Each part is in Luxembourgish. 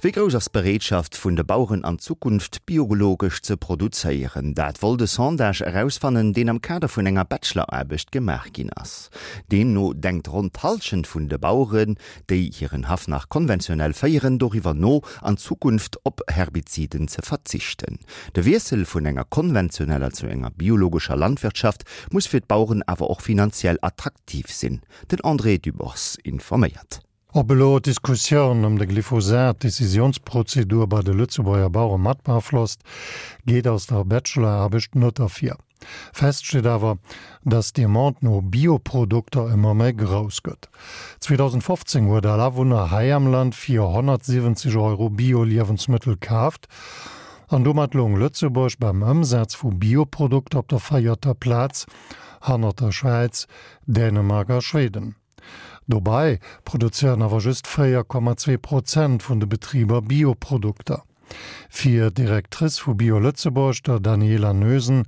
Wéi grouss ass d'Bereetschaft vun de Baueren an Zukunft biologesch ze produzéieren? Dat wollt e Sondage erausfannen, deen am Kader vun enger Bacheloraarbecht gemaach ginn ass. Deemno denkt ronn d'Hallschent vun de Baueren, déi hiren Haff nach konventionell féieren, doriwwer no, an Zukunft op Herbiziden ze verzichten. De Wiessel vun enger konventioneller zu enger biologescher Landwirtschaft muss fir d'Baueren awer och finanziell attraktiv sinn. Den André Dübbers informéiert. Ob elo d'Diskussioun ëm de Glyphosat d'Decisiounsprozedur bei de Lëtzebuerger Bauere mat beaflosst, geet aus der Bachelor-Aarbecht net ervir. Fest steet awer, dass d'Demande no Bioprodukter ëmmer méi grouss gëtt. 2015 huet all Awunner hei am Land fir 170 Euro Bio-Liewensmëttel kaaft an domat loung Lëtzebuerg beim Ëmsaz vu Bioprodukter op der véierter Plaz, hannert der Schwäiz, Dänemark a Schweden. Dobäi produzéieren awer just 4,2 Prozent vun de Betriber Bioprodukter. Fir d'Directrice vu Bio Lëtzebuerg, der Daniela Noesen,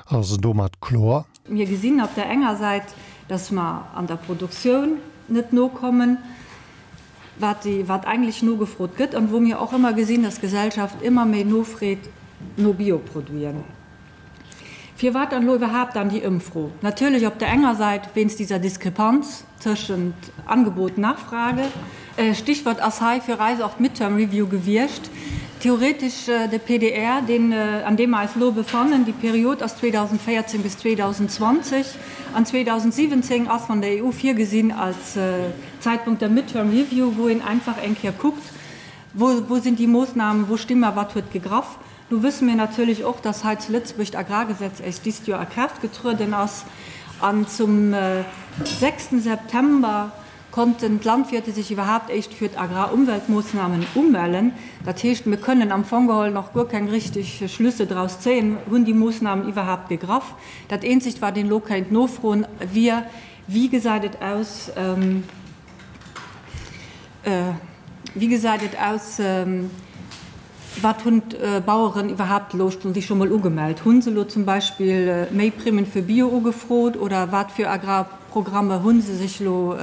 ass domat kloer. Mir gesinn op der enger Säit, dass mer an der Produktioun net nokommen, wat wat eigentlech nogefrot gëtt an wou mir och ëmmer gesinn, dass d'Gesellschaft ëmmer méi nofreet no Bioproduiten. Firwat dann elo iwwerhaapt dann déi Ëmfro? Natierlech op der enger Säit wéinst dieser Diskrepanz tëschent Angebot, Nachfrage. Stichwort ass hei fir eis och d'Midterm Review gewiescht. Theoretesch de PDR, deen, an deem mer eis elo befannen, déi Period ass 2014 bis 2020, an 2017 ass von der EU virgesinn als Zeitpunkt der Midterm Review, wou een einfach eng Kéier kuckt, wou, wou sinn déi Moosnamen, wou sti mer, wat huet gegraff. Nu wësse mir natierlech och, dass hei zu Lëtzebuerg d'Agrargesetz éischt dist Joer a Kraaft getrueden ass an zum sechsten September konnten d'Landwirte sech iwwerhaapt éischt fir d'Agrarumweltmoossnamen umellen. Dat heescht, mir kënnen am Fong geholl nach guer keng richtig Schlüsse draus zéien, Hunn déi Moossnamen iwwerhaapt gegraff? Dat eenzegt, wat een elo kéint nofroen, wier, Wéi gesäit et aus, wéi gesäit et aus, Wat hunn d'Baueren iwwerhaapt elo sich scho mol ugemellt? Hu se elo zum Beispill méi Primmen fir Bio ugefrot oder wat fir Agrarprogramme hu se sech elo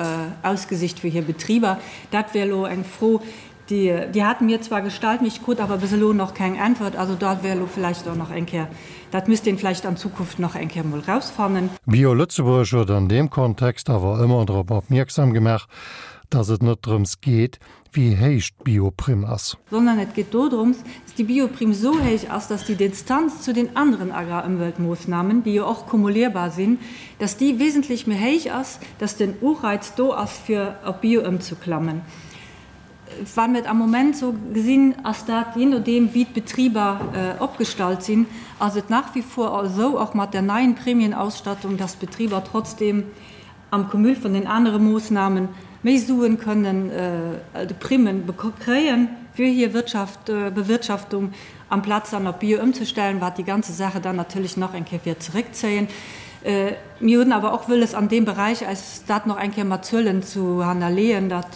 ausgesicht fir hir Betriber? Dat wär elo eng Fro, déi déi hate mir zwar gestallt, mee ech krut awer bis elo nach keng Äntwert. Also dat wär elo vläicht och nach eng Kéier, dat misst een vläicht an Zukunft nach eng Kéier mol rausfannen. Bio Lëtzebuerg huet an deem Kontext awer ëmmer drop opmierksam gemaach, datt et net drëms geet, wéi héich d'Bioprimm ass. Sondern et geet dodrums, dass déi Bioprimm esou héich ass, dass déi Distanz zu den anderen Agrarëmweltmoossnamen, déi jo och kumulierbar sinn, dass déi wesentlech méi héich ass, dass den Ureiz do ass, fir op Bio ëmzuklammen. Wa mir et am Moment esou gesinn, ass dat, jee nodeem wéi d'Betriber opgestallt sinn, ass et nach wie vor esou, och mat der neien Prämienausstattung, dass d'Betriber trotzdem am Cumul vun den anere Moossnamen méi Suen kënnen, de Primmen, kréien fir hir Wirtschaft, Bewirtschaftung, amplaz dann op Bio ëmzestellen, wat déi ganze Sache dann natierlech nach eng Kéier wäert zeréckzéien. Mir hunn awer och wëlles an deem Beräich eis dat nach eng Kéier mat Zuelen zu hannerleeën, dat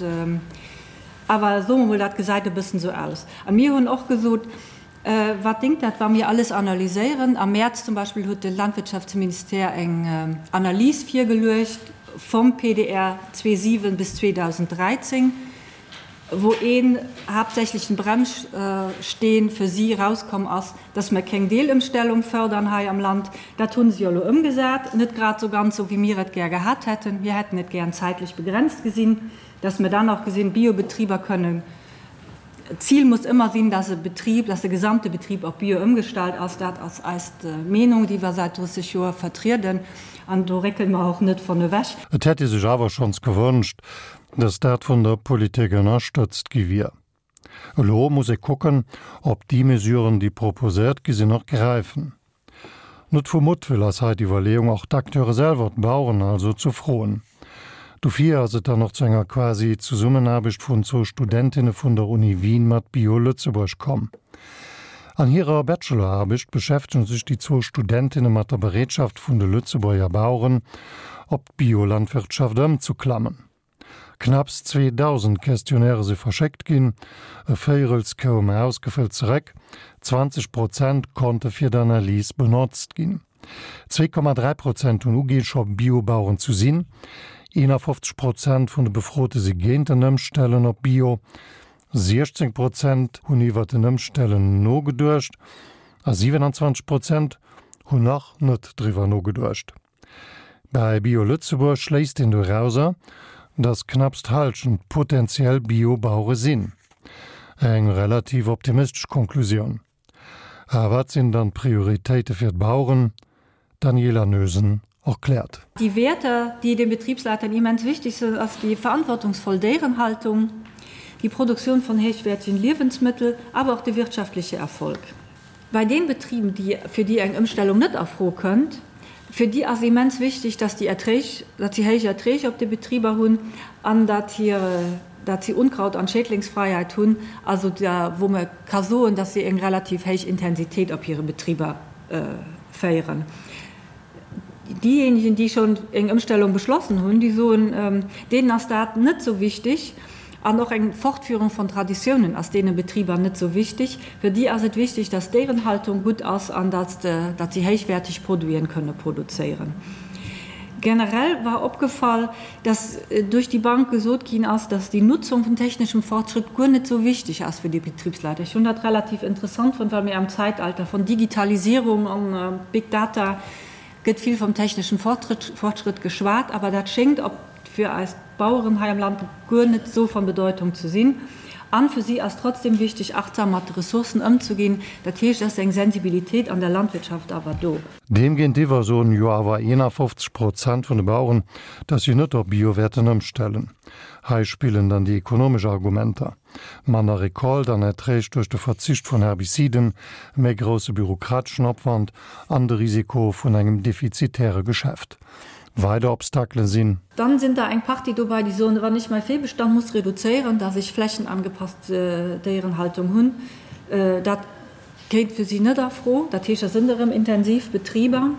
awer, soe mer mol, dat gesäit e bëssen esou aus. A mir hunn och gesot, Wat déngt dat, wa mir alles analyséieren? Am Mäerz zum Beispill huet de Landwirtschaftsministère eng Analys virgeluecht vum PDR 2007 bis 2013, wou een haaptsächlechen Bremssteen fir si erauskomm ass, dass mer keng Deelëmstellung fördern hei am Land. Dat hu se jo elo ëmgesat, net grad esou ganz esou, wéi mir et gär gehat hätten. Mir hätten et gären zäitlech begrenzt gesinn, dass mer dann och gesinn, Biobetriber kënnen D'Zil muss ëmmer sinn, dass e Betrib, dass de gesamte Betrib op Bio ëmgestallt ass. Dat ass eis Meenung, déi mer säit 30 Joer vertrieden, an do réckele mer och net von ewech. Et hätt ee sech awer schonns gewënscht, datt dat vun der Politik ënnerstëtzt gi wier. Elo muss ee kucken, ob déi Mesuren, déi proposéiert gi sinn, och gräifen. Net vu Muttwëll ass hei d'Iwwerleeung, och d'Acteure selwer, d'Baueren also, ze froen. Dofir ass et dann och zu enger quasi Zesummenaarbecht vun zwou Studentinne vun der Uni Wien mat Bio Lëtzebuerg komm. An hirer Bacheloraarbecht beschäftegen sech déi zwou Studentinne mat der Bereetschaft vun de Lëtzebuerger Baueren, op d'Biolandwirtschaft ëmzeklammen. Knapps 2.000 Questionnairë si verschéckt ginn, e Véirels koum ausgefëllt zeréck, 20 Prozent konnte fir d'Analys benotzt ginn. 2,3 Prozent hunn uginn, scho Biobaueren zu sinn, 51 Prozent vun de Befrote si géint en Ëmstellen op Bio. 16 Prozent hunn iwwer en Ëmstellen nogeduecht a 27 Prozent hunn nach net driwwer nogeduecht. Bei Bio Lëtzebuerg schléisst een dorauser, datt knapps d'Hallschent potentiell Bio-Bauere sinn. Eng relativ optimistesch Konklusioun. A wat sinn dann d'Prioritéite fir d'Baueren? D'Daniela Noesen erkläert. Die Werte, die den Betriebsleitern immens wichtig sind, ass die verantwortungsvoll Déierenhaltung, die Produktion von hochwertigen Lebensmittel, aber auch der wirtschaftliche Erfolg. Bei den Betrieben, die, fir déi eng Ëmstellung net a Fro kënnt, fir déi ass immens wichteg, dass déi Erträg, datt si héich Erträg op de Betriber hunn an datt hir, datt si Unkraut an Schädlingsfreiheit hunn, also da wou mer ka soen, datt si eng relativ héich Intensitéit op hire Betriber féieren. Diejenigen, déi schonn eng Ëmstellung beschlossen hunn, déi soen, deenen ass dat net esou wichtig. An och eng Fortführung von Traditiounen ass deene Betriber net esou wichtig. Fir déi ass et wichtig, dass d'Déierenhaltung gutt ass an dass si héichwäerteg Produiten kënne produzéieren. Generell war opgefall, dass duerch déi Bank gesot ginn ass, dass déi Nutzung vun technischem Fortschritt guer net esou wichtig ass fir déi Betriebsleiter. Ech hunn dat relativ interessant fonnt, well mir am Zeitalter von Digitalisierung an Big Data gëtt vill vom technischen Fortschritt geschwat, awer dat schéngt op fir eis Baueren hei am Land guer net esou von Bedeutung ze sinn. An fir si ass trotzdem wichteg, achtsam mat de Ressourcen ëmzeginn. Dat heescht, et ass eng Sensibilitéit an der Landwirtschaft awer do. Deem géintiwwer soen jo awer 51 Prozent vun de Baueren, datt si net op Bio wäerten ëmstellen. Hei spillen dann déi ekonomesch Argumenter, manner Recolte an Erträg duerch de Verzicht vun Herbiciden, e méi grousse bürokrateschen Opwand an de Risiko vun engem defizitäre Geschäft. Weider Obstakele sinn. Dann sinn der eng Partie dobei, déi soen, wann ech mäi Véibestand muss reduzéieren, datt ech flächenangepasst Déierenhaltung hunn, dat Kéint fir si net a Fro. Dat heescht, dat sënn erëm intensiv Betriber.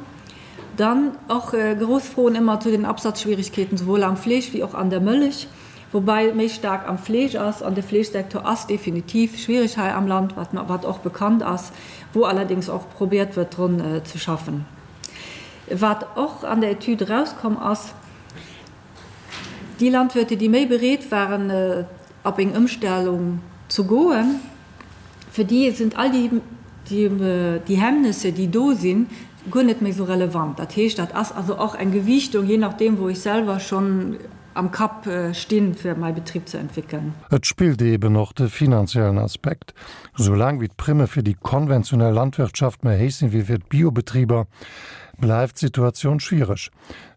Dann och grouss Froen ëmmer zu den Absatzschwierigkeeten, souwuel am Fleesch wéi och an der Mëllech, woubäi et méi staark am Fleesch ass. An de Fleeschsektor ass definitiv schwierig hei am Land, wat wat och bekannt ass, wou allerdéngs och probiert wërt drun ze schaffen. Wat och an der Etüd erauskomm ass, Déi Landwirte, déi méi bereet waren, op eng Ëmstellung ze goen, fir déi sinn all déi Hemmnisse, déi do sinn, guer net méi esou relevant. Dat heescht, dat ass also och eng Gewiichtung, jee nachdeem, wou ech selwer schonn am Kapp stinn, fir mäi Betrib ze entwéckeln. Et spillt eeben och de finanziellen Aspekt. Soulaang wéi d'Primme fir déi konventionell Landwirtschaft méi héich sinn wéi fir d'Biobetriber, bleift d'Situatioun schwiereg.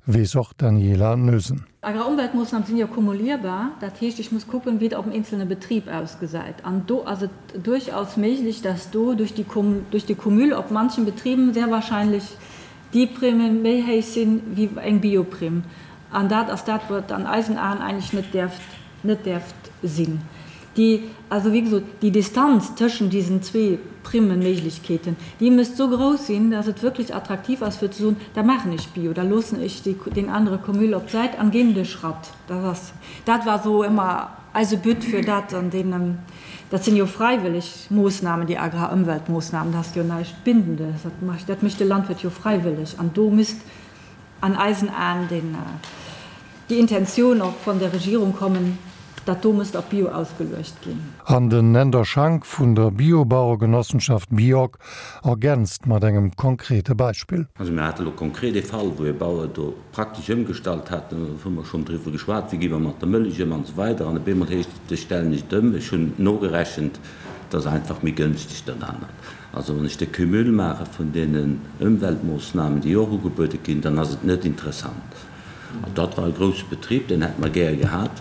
Weess och d'Daniela Noesen. Agrarumweltmoossnamen sinn jo kumulierbar, dat heescht, ech muss kucken, wéi et op dem eenzelne Betrib ausgesäit. An do ass et duerchaus méiglech, dass do duerch déi duerch de Cumul op manchen Betriben sehr wahrscheinlech déi Primen méi héich sinn wéi eng Bioprimm. An dat ass dat, wat an eisen Aen eigentlech net däerft net däerft sinn. Déi, also wéi gesot, déi Distanz tëschent diesen zwee Primmenméiglechkeeten, déi misst esou grouss sinn, dass et wierklech attraktiv ass fir ze soen, da maachen ech Bio, da loossen ech déi, deen anere Cumul op d'Säit an ginn de Schratt. Dat ass, dat war esou ëmmer eise But fir dat an deenen, dat sinn jo fräiwëlleg Moossnamen, déi Agrarëmweltmoossnamen, dat ass jo näischt Bindendes, dat mécht, dat mécht de Landwirt jo fräiwëlleg an do misst an eisen Aen den, déi Intentioun och von der Regierung kommen, dat do misst op Bio ausgeluecht ginn. An den Änder Schank vun der Biobauergenossenschaft Biog ergänzt mat engem konkrete Beispill. Also mir hate lo konkret ee Fall, wou ee Bauer do praktesch ëmgestallt hat, do hu mer schonn driwwer geschwat, wéi gi mer mat der Mëllech ëm an esou weider an op eemol heescht et, ech stellen nicht ëm, ech hunn nogerechent, et ass einfach méi gënschteg dat anert. Also wann ech de Cumul maache vun deenen Ëmweltmoossnamen, déi och ugebuede ginn, dann ass et net interessant. An dat war e grousse Betrib, deen hätte mer gär gehat.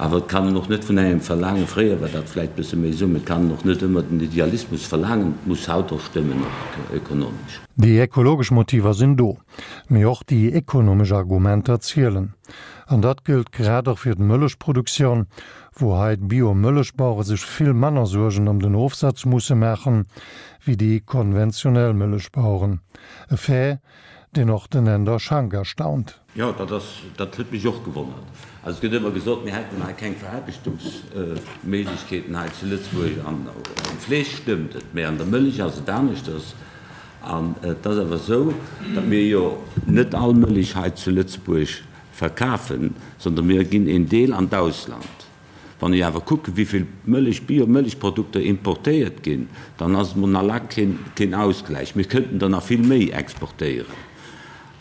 Awer et kann een och net vun engem verlaangen, fréier war dat vläicht e bësse méi esou, mä et kann een och net ëmmer den Idealismus verlaangen, et muss haut och stëmmen, och ökonomesch. Déi ekologesch Motiver sinn do, mee och déi ekonomesch Argumenter zielen. An dat gëllt grad och fir d'Mëllechproduktioun, wou hei d'Bio-Mëllechbauere sech vill manner Suergen ëm den Ofsaz musse maachen, wéi déi konventionell Mëllechbaueren. E Fait, deen och den Änder Schank erstaunt. Jo, dat ass, dat huet mech och gewonnert. Also et gëtt ëmmer gesot, mir hätten hei keng Veraarbechtungsméiglechkeeten hei zu Lëtzebuerg. An am Fleesch stëmmt et, mä an der Mëllech ass et aneschters. An et ass awer esou, datt mir jo net all Mëllech hei zu Lëtzebuerg verkafen, sondern mir ginn een Deel an d'Ausland. Wann ech awer kucken, wéi vill Mëllech, Bio-Mëllechprodukter importéiert ginn, dann ass et mol nach laang keen Ausgläich. Mir kënnten der nach vill méi exportéieren.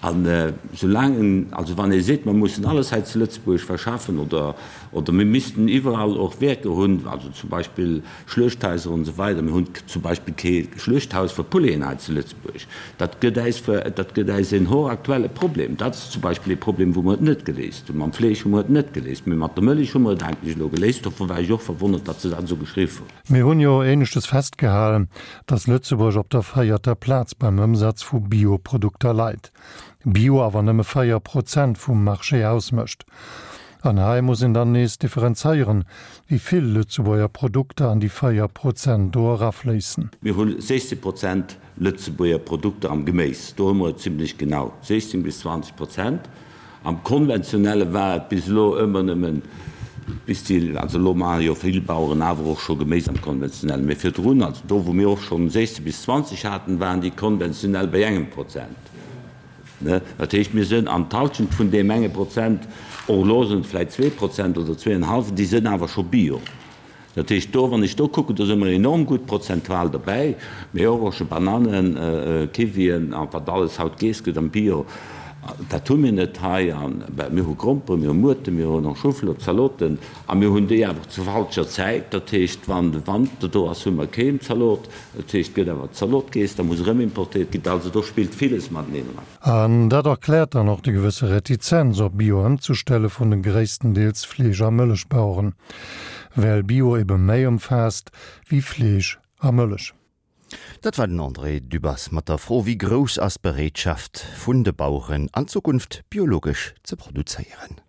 An soulaang, also wann ee seet, mer mussen alles hei zu Lëtzebuerg verschaffen oder, oder mir missten iwwerall och Werker hunn, also zum Beispill Schluechthaiser und esou weider, mir hunn zum Beispill kee Schluechthaus fir Pouleten hei zu Lëtzebuerg, dat gëtt äis, dat gëtt äis en hochaktuelle Problem. Dat ass zum Beispill ee Problem, wou mer et net geléist hunn. Mam Fleesch hu mer et net geléist, mee mat der Mëllech hu mer et eigentlech elo geléist. Dofir war ech och verwonnert, datt se dat esou geschriww hunn. Mir hunn jo éineschtes festgehalen, dass Lëtzebuerg op der véierter Plaz beim Ëmsaz vu Bio-Produkter leit, Bio awer nëmme 4 Prozent vum Marché ausmécht. An hei muss een dann nees differenzéieren, wéi vill Lëtzebuerger Produkter an déi 4 Prozent do erafléissen. Mir hu 16 Prozent Lëtzebuerger Produkter am Geméis, do hu mer et zimlech genau, 16 bis 20 Prozent. Am Konventionelle war et bis elo ëmmer nëmmen bis déi, also elo maache jo vill Baueren awer och scho Geméis am Konventionellen, mee virdrun, also do wou mir och schonn 16 bis 20 haten, waren déi konventionell bei engem Prozent. Dat heescht, mir sënn an d'Halschent vun deem enge Prozent, och elo sënn et vläicht 2 Prozent oder zweeënhallwen, déi sënn awer scho Bio. Dat heescht, do, wann ech do kucken, do si mer enorm gutt prozentual derbäi, mee och och scho Bananen, Kiwien a wat alles haut geess gëtt am Bio, dat hu mir net hei. A mir hu Gromperen, mir hu Muerten, mir hunn och Schuflor, Zaloten a mir hunn déi awer zur falscher Zäit. Dat heescht, wann de Wanter do ass, hu mer keen Zalot. Dat heescht, et gëtt awer Zalot geess, da muss erëm importéiert ginn. Also do spillt villes mateneen eran. An dat erkläert dann och déi gewësse Retizenz op Bio ëmzestelle vun de gréisstendeels Fleesch a Mëllechbaueren, well Bio ebe méi ëmfaasst wéi Fleesch a Mëllech. Dat war den André Dübbers mat der Fro, Wéi grouss ass d'Bereetschaft vun de Baueren an Zukunft biologesch ze produzéieren?